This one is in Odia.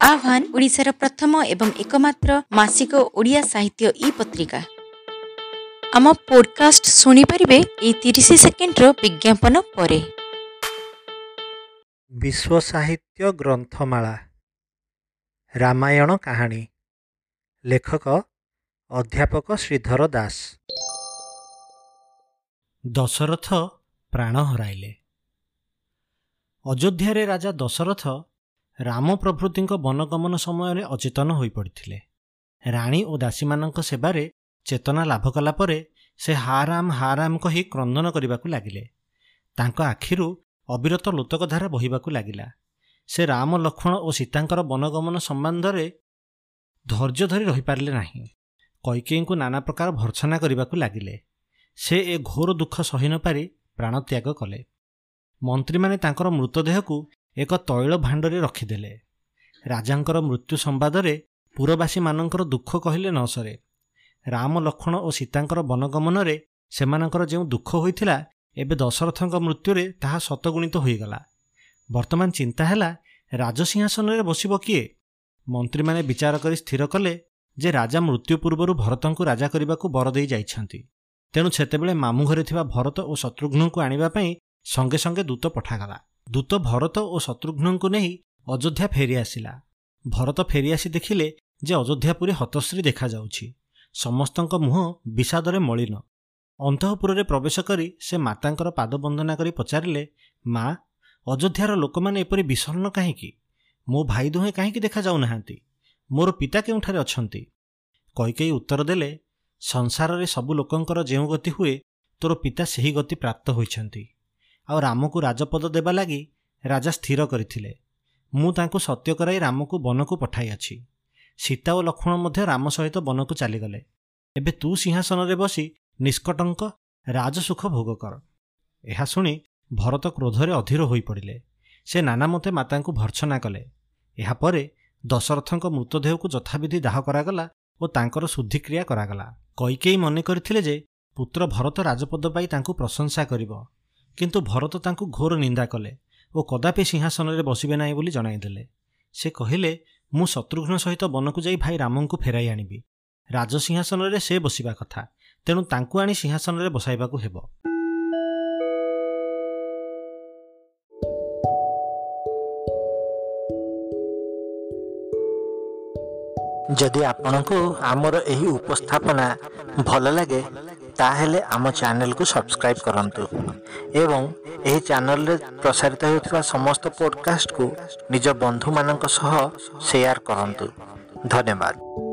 ଆହ୍ୱାନ ଓଡ଼ିଶାର ପ୍ରଥମ ଏବଂ ଏକମାତ୍ର ମାସିକ ଓଡ଼ିଆ ସାହିତ୍ୟ ଇ ପତ୍ରିକା। ଆମ ପୋଡକାଷ୍ଟ ଶୁଣିପାରିବେ ଏଇ 30 ସେକେଣ୍ଡର ବିଜ୍ଞାପନ ପରେ। ବିଶ୍ୱ ସାହିତ୍ୟ ଗ୍ରନ୍ଥମାଳା, ରାମାୟଣ କାହାଣୀ, ଲେଖକ ଅଧ୍ୟାପକ ଶ୍ରୀଧର ଦାସ। ଦଶରଥ ପ୍ରାଣ ହରାଇଲେ। ଅଯୋଧ୍ୟାରେ ରାଜା ଦଶରଥ ରାମ ପ୍ରଭୃତିଙ୍କ ବନଗମନ ସମୟରେ ଅଚେତନ ହୋଇପଡ଼ିଥିଲେ। ରାଣୀ ଓ ଦାସୀମାନଙ୍କ ସେବାରେ ଚେତନା ଲାଭ କଲା ପରେ ସେ ହା ରାମ ହା ରାମ କହି କ୍ରନ୍ଦନ କରିବାକୁ ଲାଗିଲେ। ତାଙ୍କ ଆଖିରୁ ଅବିରତ ଲୋତକଧାରା ବହିବାକୁ ଲାଗିଲା। ସେ ରାମ, ଲକ୍ଷ୍ମଣ ଓ ସୀତାଙ୍କର ବନଗମନ ସମ୍ବନ୍ଧରେ ଧୈର୍ଯ୍ୟ ଧରି ରହିପାରିଲେ ନାହିଁ। କୈକେୟୀଙ୍କୁ ନାନା ପ୍ରକାର ଭର୍ତ୍ସନା କରିବାକୁ ଲାଗିଲେ। ସେ ଏ ଘୋର ଦୁଃଖ ସହି ନପାରି ପ୍ରାଣତ୍ୟାଗ କଲେ। ମନ୍ତ୍ରୀମାନେ ତାଙ୍କର ମୃତଦେହକୁ ଏକ ତୈଳ ଭାଣ୍ଡରେ ରଖିଦେଲେ। ରାଜାଙ୍କର ମୃତ୍ୟୁ ସମ୍ବାଦରେ ପୁରବାସୀମାନଙ୍କର ଦୁଃଖ କହିଲେ ନ ସରେ। ରାମ, ଲକ୍ଷ୍ମଣ ଓ ସୀତାଙ୍କର ବନଗମନରେ ସେମାନଙ୍କର ଯେଉଁ ଦୁଃଖ ହୋଇଥିଲା, ଏବେ ଦଶରଥଙ୍କ ମୃତ୍ୟୁରେ ତାହା ଶତଗୁଣିତ ହୋଇଗଲା। ବର୍ତ୍ତମାନ ଚିନ୍ତା ହେଲା, ରାଜସିଂହାସନରେ ବସିବ କିଏ? ମନ୍ତ୍ରୀମାନେ ବିଚାର କରି ସ୍ଥିର କଲେ ଯେ ରାଜା ମୃତ୍ୟୁ ପୂର୍ବରୁ ଭରତଙ୍କୁ ରାଜା କରିବାକୁ ବର ଦେଇ ଯାଇଛନ୍ତି। ତେଣୁ ସେତେବେଳେ ମାମୁଁ ଘରେ ଥିବା ଭରତ ଓ ଶତ୍ରୁଘ୍ନଙ୍କୁ ଆଣିବା ପାଇଁ ସଙ୍ଗେ ସଙ୍ଗେ ଦୂତ ପଠାଗଲା। ଦୂତ ଭରତ ଓ ଶତ୍ରୁଘ୍ନଙ୍କୁ ନେଇ ଅଯୋଧ୍ୟା ଫେରିଆସିଲା। ଭରତ ଫେରିଆସି ଦେଖିଲେ ଯେ ଅଯୋଧ୍ୟାପୁରୀ ହତଶ୍ରୀ ଦେଖାଯାଉଛି। ସମସ୍ତଙ୍କ ମୁହଁ ବିଷାଦରେ ମଳିନ। ଅନ୍ତଃପୁରରେ ପ୍ରବେଶ କରି ସେ ମାତାଙ୍କର ପାଦବନ୍ଦନା କରି ପଚାରିଲେ, ମା, ଅଯୋଧ୍ୟାର ଲୋକମାନେ ଏପରି ବିଷଣ୍ଣ କାହିଁକି? ମୋ ଭାଇ ଦୁହେଁ କାହିଁକି ଦେଖାଯାଉନାହାନ୍ତି? ମୋର ପିତା କେଉଁଠାରେ ଅଛନ୍ତି? କୈକେୟୀ ଉତ୍ତର ଦେଲେ, ସଂସାରରେ ସବୁ ଲୋକଙ୍କର ଯେଉଁ ଗତି ହୁଏ, ତୋର ପିତା ସେହି ଗତି ପ୍ରାପ୍ତ ହୋଇଛନ୍ତି। ଆଉ ରାମକୁ ରାଜପଦ ଦେବା ଲାଗି ରାଜା ସ୍ଥିର କରିଥିଲେ। ମୁଁ ତାଙ୍କୁ ସତ୍ୟ କରାଇ ରାମକୁ ବନକୁ ପଠାଇଅଛି। ସୀତା ଓ ଲକ୍ଷ୍ମଣ ମଧ୍ୟ ରାମ ସହିତ ବନକୁ ଚାଲିଗଲେ। ଏବେ ତୁ ସିଂହାସନରେ ବସି ନିଷ୍କଟଙ୍କ ରାଜସୁଖ ଭୋଗ କର। ଏହା ଶୁଣି ଭରତ କ୍ରୋଧରେ ଅଧୀର ହୋଇପଡ଼ିଲେ। ସେ ନାନାମତେ ମାତାଙ୍କୁ ଭର୍ତ୍ସନା କଲେ। ଏହାପରେ ଦଶରଥଙ୍କ ମୃତଦେହକୁ ଯଥାବିଧି ଦାହ କରାଗଲା ଓ ତାଙ୍କର ଶୁଦ୍ଧିକ୍ରିୟା କରାଗଲା। କୈକେୟୀ ମନେ କରିଥିଲେ ଯେ ପୁତ୍ର ଭରତ ରାଜପଦ ପାଇ ତାଙ୍କୁ ପ୍ରଶଂସା କରିବ, କିନ୍ତୁ ଭରତ ତାଙ୍କୁ ଘୋର ନିନ୍ଦା କଲେ ଓ କଦାପି ସିଂହାସନରେ ବସିବେ ନାହିଁ ବୋଲି ଜଣାଇଦେଲେ। ସେ କହିଲେ, ମୁଁ ଶତ୍ରୁଘ୍ନ ସହିତ ବନକୁ ଯାଇ ଭାଇ ରାମଙ୍କୁ ଫେରାଇ ଆଣିବି। ରାଜସିଂହାସନରେ ସେ ବସିବା କଥା, ତେଣୁ ତାଙ୍କୁ ଆଣି ସିଂହାସନରେ ବସାଇବାକୁ ହେବ। ଯଦି ଆପଣଙ୍କୁ ଆମର ଏହି ଉପସ୍ଥାପନା ଭଲ ଲାଗେ, ତାହେଲେ ଆମ ଚ୍ୟାନେଲକୁ ସବସ୍କ୍ରାଇବ୍ କରନ୍ତୁ ଏବଂ ଏହି ଚ୍ୟାନେଲରେ ପ୍ରସାରିତ ହେଉଥିବା ସମସ୍ତ ପଡ଼କାଷ୍ଟକୁ ନିଜ ବନ୍ଧୁମାନଙ୍କ ସହ ସେୟାର କରନ୍ତୁ। ଧନ୍ୟବାଦ।